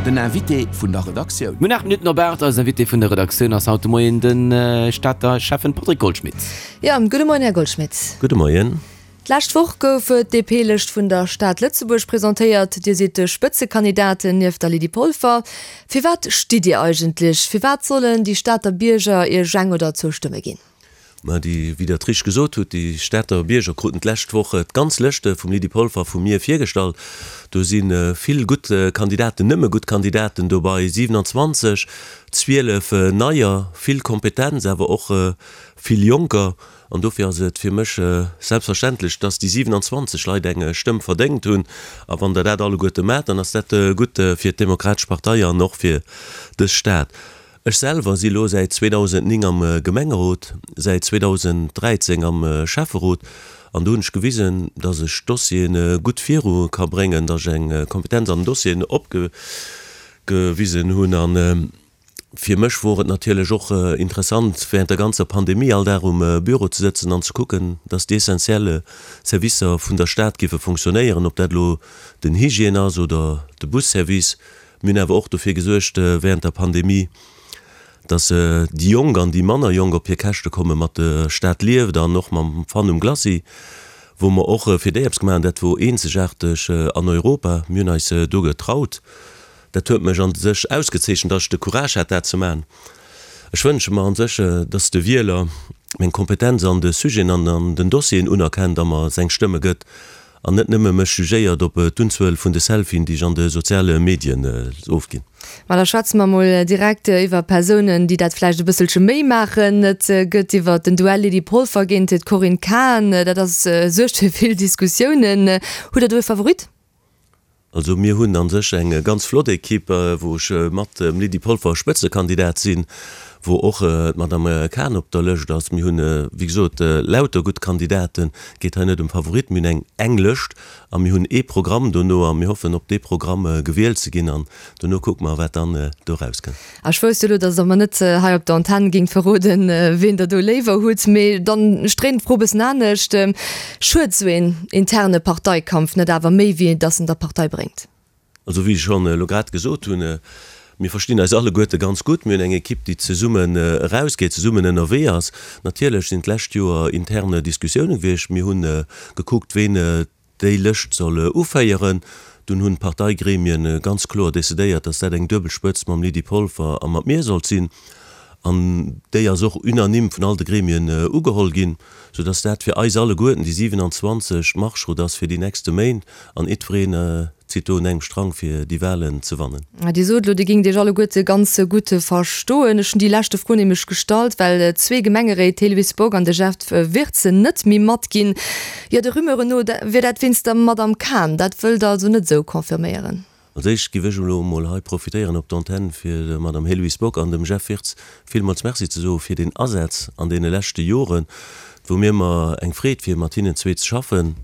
Den Invité vun der Redaktioun. Mir hunn 8 Minutten op 8. Eisen Invité vun der Redaktioun ass haut de Moien de Stater Schäffen Patrick Goldschmidt. Jo, gudde Moien, Här Goldschmidt. Gudde Moien. D'lescht Woch gouf d'DP-Lëscht vun der Stad Lëtzebuerg presentéiert. Dir sidd de Spëtzekandidat nieft der Lydie Polfer. Firwat stitt Dir eigentlech? Firwat sollen déi Stater Bierger Iech eng oder zwou Stëmme ginn? Mä déi, wéi Der et richteg gesot hutt, déi Stater Bierger kruten d'lescht Woch d'ganz Lëscht vum Lydie Polfer a vu mir virgestallt. Do si vill gutt Kandidaten, nëmme gutt Kandidaten dobei, 27, 12 neier, vill Kompetenz, awer och vill Jonker. An dofir ass et fir mech selbstverständlech, dass déi 27 Leit eng Stëmm verdéngt hunn. A wann Der dat alleguerte maacht, dann ass dat gutt fir d'Demokratesch Partei an och fir dës Stad. Ech selwer si elo säit 2009 am Gemengerot, säit 2013 am Schäfferot. An do hunn ech gewisen, dass ech Dossiere gutt viru ka bréngen, dass ech eng Kompetenz an den Dossieren opgewisen hunn. Fir mech wor et natierlech och interessant, während der ganzer Pandemie all Dag um Büro ze sëtzen an ze kucken, dass déi essentielle Servicer vun der Stad giffe fonctionnéieren, ob dat elo den Hygiène ass oder de Busservice. Mir hunn awer och dofir gesuergt während der Pandemie, dass déi Jonk an déi manner Jonk op hir Käschte komme mat der Stad lieft an och mam Fun um Glacis, wou mer och fir déi eppes gemaach hunn. Dat wor eenzegaarteg an Europa. Mir hunn eis do getraut. Dat huet mech an sech ausgezeechent, dass ech de Courage hat, dat ze maachen. Ech wënsche mer an sech, dass de Wieler meng Kompetenz an de Sujeten an an den Dossieren unerkennt a mer seng Stëmme gëtt an net nëmme mech jugéiert op d'Unzuel vun de Selfien, déi ech an de soziale Medien ofginn. Ma da schwätze mer mol direkt iwwer Persounen, déi dat vläicht e bësselche méi maachen. Et gëtt iwwer den Duell Lydie Polfer géint d'Corinne Cahen, dat ass suergt fir vill Diskussiounen. Hutt Der do e Favorit? Also mir hunn a sech eng ganz flott Equipe, wou ech mat dem Lydie Polfer Spëtzekandidat sinn, wou och d'Madame Cahen op der Lëscht ass. Mir hunn, wéi gesot, lauter gutt Kandidaten. Et geet hei net ëm Favoritten. Mir hunn eng eng Lëscht a mir hunn ee Programm dono a mir hoffen, op dee Programm gewielt ze ginn an dono kucke mer, wat dann do erauskënnt. A ech wousst jo elo, datt Der mer net hei op der Antenn géingt verroden, ween Der do léiwer hutt. Mee dann, ech dréinen d'Fro e bëssen anescht, Schued esou een interne Parteikampf net awer méi, wéi datt en der Partei bréngt? Also wéi ech schonn elo grad gesot hunn, mir verstinn eis alleguerte ganz gutt. Mir hunn eng Ekipp, déi zesummen erausgeet, zesummen ënnerwee ass. Natierlech sinn d'lescht Joer interne Diskussioune gewiescht. Mir hu gekuckt, ween déi Lëscht soll uféieren. Dunn hunn d'Parteigremien ganz kloer decidéiert, dass dat eng duebel Spëtzt mam Lydie Polfer a mat mir sollt sinn. An déi ass och unanime vun all de Gremien ugeholl ginn, soudass dat fir eis alleguerten, déi 27, d'Marschroute ass fir déi nächste Méint an jiddwereen zitt do un engem Strang fir déi Wahlen ze wannen. Dir sot elo, Dir géingt Iech alleguerte ganz gutt verstoen. Ech hunn déi leschte Fro nämlech gestallt, well zwee Gemengeréit, d'Héloïse Bock an de Jeff Wirtz, net méi matginn. Jo, de Rumeuren no wier dat wéinst der Madame Cahen. Dat wëllt Der also net esou confirméieren? Als éischt giff ech elo emol hei profitéieren op d'Antenne fir der Madame Héloïse Bock an dem Jeff Wirtz villmools Merci ze soe fir den Asaz an deene leschte Joren. Et wor mir ëmmer eng Freed fir mat hinnen zwee ze schaffen.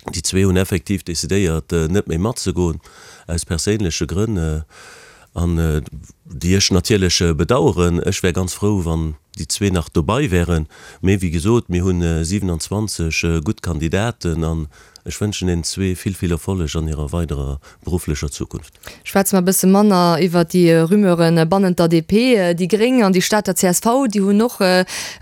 Déi zwee hunn effektiv decidéiert net méi matzegoen, aus perséinleche Grënn, an déi ech natierlech bedaueren. Ech wär ganz frou, wann déi zwee nach dobai wären. Mee wéi gesot, mir hunn 27 gutt Kandidaten an ech wënschen deenen zwee vill, vill Erfolleg an hirer weiderer berufflecher Zukunft. Schwätze mer e bësse manner iwwert déi Rumeuren bannent der DP. Déi Gréng an déi Stater csv, déi hunn och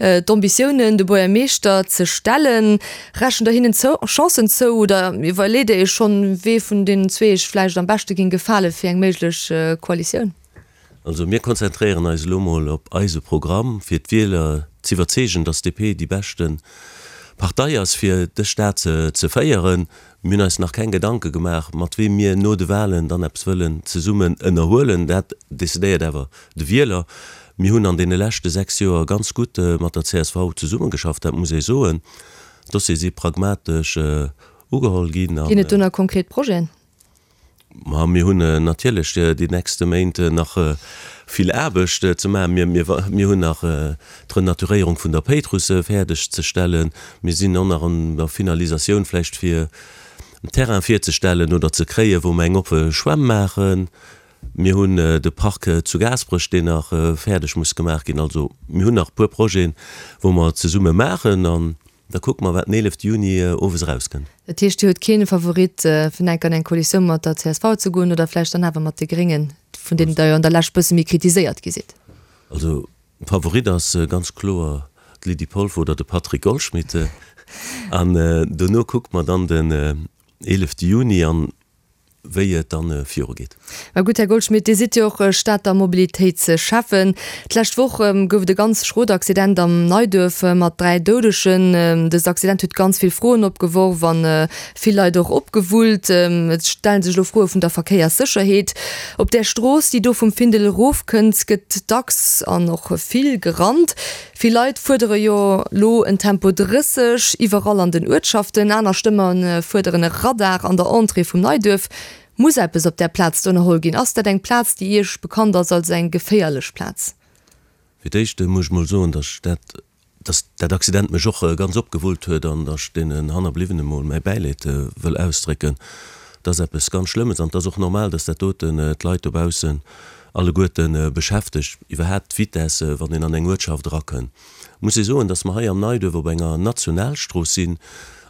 d'Ambitiounen, de Buergermeeschter ze stellen. Rechent der hinnen Chancen zou oder iwwerleet der iech schonn, wee vun deenen zwee iech vläicht am beschte géing gefale fir eng méiglech Koalitioun? Also mir konzentréieren eis elo mol op eise Programm, fir d'Wieler z'iwwerzeegen, datt d'DP déi beschte Partei ass, fir dës Stad ze féieren. Mir hunn eis nach keng Gedanke gemaach, mat weem mir no de Wahlen dann eppes wëllen zesummen ënnerhuelen. Dat decidéiert awer de Wieler. Mir hunn an deene leschte 6 Joer ganz gutt mat der csv zesummegeschafft, dat muss ee soen. D'Dossiere si pragmatesch ugeholl ginn. Ginn et do nach konkret Projeten? Ma mir hunn natierlech déi nächste Méint nach vill Aarbecht ze maachen. Mir hunn nach d'Renaturéierung vun der Péitruss fäerdeg ze stellen. Mir sinn och nach an der Finalisatioun vläicht fir en Terrain virzestellen oder ze kréien, wou mer eng oppe Schwämm maachen. Mir hunn de Park zu Gaasperech, deen nach fäerdeg muss gemaach ginn. Also mir hunn nach e puer Projeten, wou mer zesumme maachen. Da kucke mer, wat den 11 Juni owes erauskënnt. Dat heescht, Dir hutt kee Favorit, fir enk an eng Koalitioun mat der csv ze goen oder vläicht dann awer mat de Gréngen, vun deenen Der jo an der Lescht bësse méi kritiséiert gi sidd? Also Favorit ass ganz kloer d'Lydie Polfer oder de Patrick Goldschmidt. An dono kucke mer dann den 11 Juni an wéi et dann viru geet. Mä gutt, Här Goldschmidt, Dir sidd jo och Stater Mobilitéitsschäffen. D'lescht Woch gouf et e ganz schrot Accident am Neiduerf mat 3 Doudegen. Dëst Accident huet ganz vill Froen opgeworf an vill Leit och opgewullt. Et stellen sech elo Froe vun der Verkéierssécherheet. Op där Strooss, déi do vum Findel erofkënnt, gëtt dacks an och vill gerannt. Vill Leit fuerdere jo lo en Tempo 30 iwwerall an den Uertschaften, aner Stëmme fuerderen e Radar an der Entrée vum Neiduerf. Muss eppes op där Plaz do ënnerholl ginn? Ass dat eng Plaz, déi Iech bekannt ass als eng geféierlech Plaz? Fir d'éischt muss ech mol soen, dass dat, dass dat Accident mech och ganz opgewullt huet an dass ech deenen Hannerbliwwene mol mäi Bäileed wëll ausdrécken. Dat ass eppes ganz Schlëmmes an et ass och normal, dass dat doten d'Leit dobaussen alleguerte beschäftegt, iwwerhaapt d'Vitesse, wann een an eng Uertschaft erakënn. Muss ee soen, dass mer hei am Neiduerf op enger Nationalstrooss sinn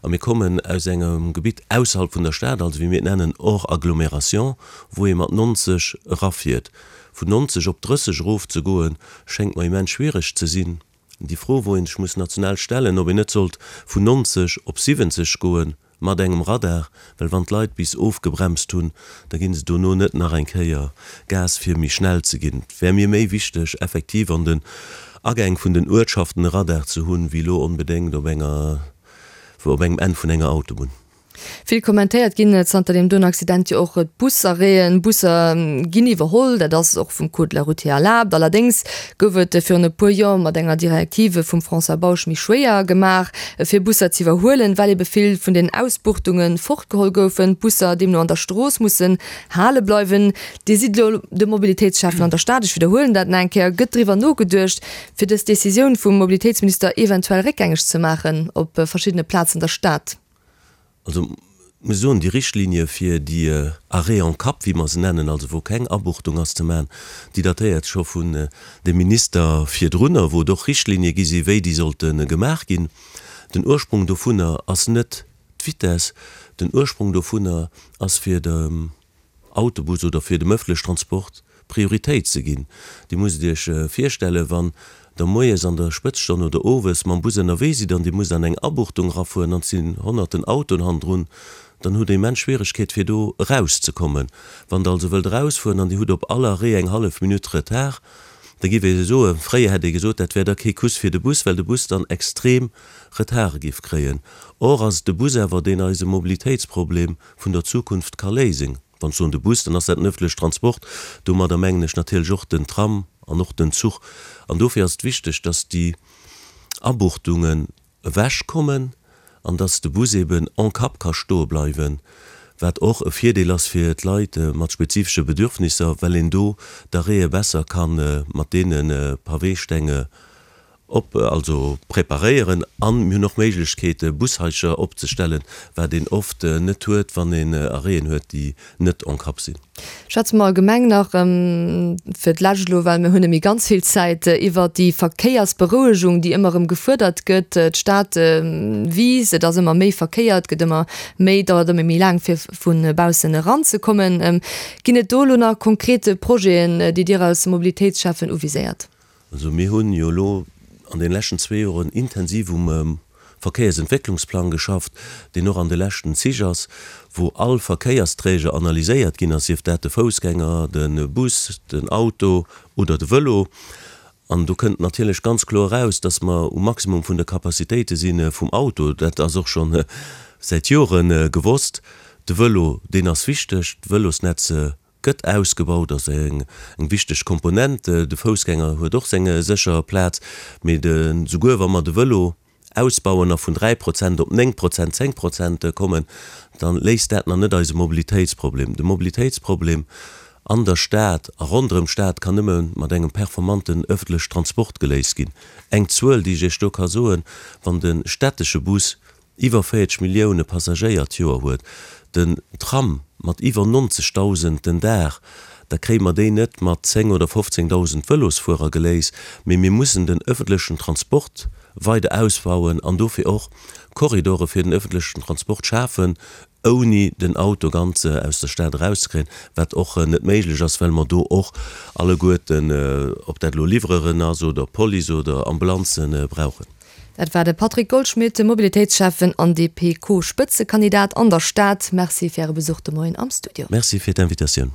a mir kommen aus engem Gebitt ausserhalb vun der Stad, also wéi mir et nennen hors agglomération, wou ee mat 90 erafiert. Vun 90 op 30 erofzegoen, schéngt mer immens schwiereg ze sinn. Déi Fro, wou ee sech muss national stellen, ob een net sollt vun 90 op 70 goen, Mat engem Radar, well wann d'Leit bis ofgebremst hunn, da ginn se dono net nach eng Kéier Gas fir méi schnell ze ginn. Et wär mir méi wichteg effektiv an den Agäng vun den Uertschaften e Radar ze hunn, wéi elo onbedéngt op enger op engem Enn vun enger Autobunn. Vill kommentéiert ginn zanter deem doen Accident jo och d'Busarrêten. Busser ginn iwwerholl, dat ass och vum Code de la route hier erlaabt. Allerdéngs gouf et virun e puer Joer mat enger Direktive vum François Bausch méi schwéier gemaach, fir Busser z'iwwerhuelen, well ebe vill vun den Ausbuchtunge fortgeholl goufen, d'Busser deemno an der Strooss mussen hale bleiwen. Dir sidd elo de Mobilitéitsschäffen an der Stad, ech widderhuelen dat nach eng Kéier. Gëtt driwwer nogeduecht, fir dës Decisioun vum Mobilitéitsminister eventuell réckgängeg ze maachen op verschiddene Plazen der Stad? Also, muss soen, déi Richtlinie fir déi Arrêts en cap, wéi mer se nennen, also wou keng Abuchtung ass ze maachen, déi datéiert scho vun dem Minister virdrunner, wou et och Richtlinie gi si wéi déi sollte gemaach ginn. Den Ursprung dovunner ass net d'Vitesse, den Ursprung dovunner ass fir dem Autobus oder fir dem ëffentlech Transport Prioritéit ze ginn. Dir musst Iech virstellen, wann Der moies an der Spëtzstonn oder owes mam Bus ënnerwee sidd an Dir musst an eng Abuchtung erafueren an et sinn honnerten Autoen hannendrun, dann hutt Der immens Schwieregkeet fir do erauszekommen. Wann Der also wëllt erausfueren an Dir hutt op all Arrêt eng hallef Minutt Retard, da giff ee soen, fréier hätt ee gesot, dat wär da kee Kuss fir de Bus, well de Bus dann extrem Retarde giff kréien. Or ass et de Bus awer, deen eise Mobilitéitsproblem vun der Zukunft ka léisen. Wann ech soen de Bus, dann ass dat den ëffentleche Transport. Domadder mengen ech natierlech och den Tram an och den Zuch. An dofir ass et wichteg, dass déi Abuchtungen ewechkommen an dass de Bus eben en cap ka stoe bleiwen, wat och e Virdeel ass fir d'Leit mat spezifesche Bedürfnisser, well een do d'Arrêtë besser ka mat deene Paweestenge Op, also preparéieren an mir hunn och Méiglechkeete Bushaischer opzestellen, wat een oft net huet, wann een Arrêten huet, déi net en cap sinn. Schwätze mer allgemeng nach fir d'lescht elo, well mir hunn net méi ganz vill Zäit, iwwert déi Verkéiersberouegung, déi ëmmer erëm gefuerdert gëtt. D'Stad wiisst, et ass ëmmer méi Verkéier, et gëtt ëmmer méi, dauert ëmmer méi laang fir vu baussen eranzekommen. Ginn et do elo nach konkret Projeten, déi Dir als Mobilitéitsschäffen uviséiert? Also mir hunn jo elo an deene leschten zwee Joren intensiv um Verkéiersentwécklungsplang geschafft, deen och an de leschten Zich ass, wou all Verkéiersträger analyséiert ginn ass, sief dat de Foussgänger, de Bus, den Auto oder de Vëlo. An do kënnt natierlech ganz kloer eraus, dass mer um Maximum vun de Capacitéite si vum Auto. Dat ass och scho säit Jore gewosst. De Vëlo, deen ass wichteg, d'Vëlosnetz Gëtt ausgebaut, ass eng wichteg Komponent. De Foussgänger huet och seng sécher Plaz, mee de souguer wa mer de Vëlo ausbauen a vun 3 Prozent op 9 Prozent, 10 Prozent kommen, da léist dat nach net eise Mobilitéitsproblem. De Mobilitéitsproblem an der Stad a ronderëm d'Stad kann nëmme mat engem performanten ëffentlech Transport geléist ginn. Eng Zuel, déi ech Iech do ka soen, Wann de stättesche Bus iwwer 40 Millioune Passagéier d'Joer huet, den Tram mat iwwer 90.000 den Dag, da kréie mer déi net mat 10 oder 15.000 Vëlosfuerer geléist, mee mir mussen den ëffentlechen Transport. weider ausbauen an dofir och Korridore fir den öffentlechen Transport schafen, ouni den Auto ganz aus der Stad erauszekréien, wat och net méiglech ass, well mer do och alleguerten, ob dat elo Livreuren ass oder Police oder Ambulanzen, brauchen. Dat war de Patrick Goldschmidt, Mobilitéitsschäffen an DP-Co-Spëtzekandidat an der Stad. Merci fir Äre Besuch de Moien am Studio. Merci fir d'Invitatioun.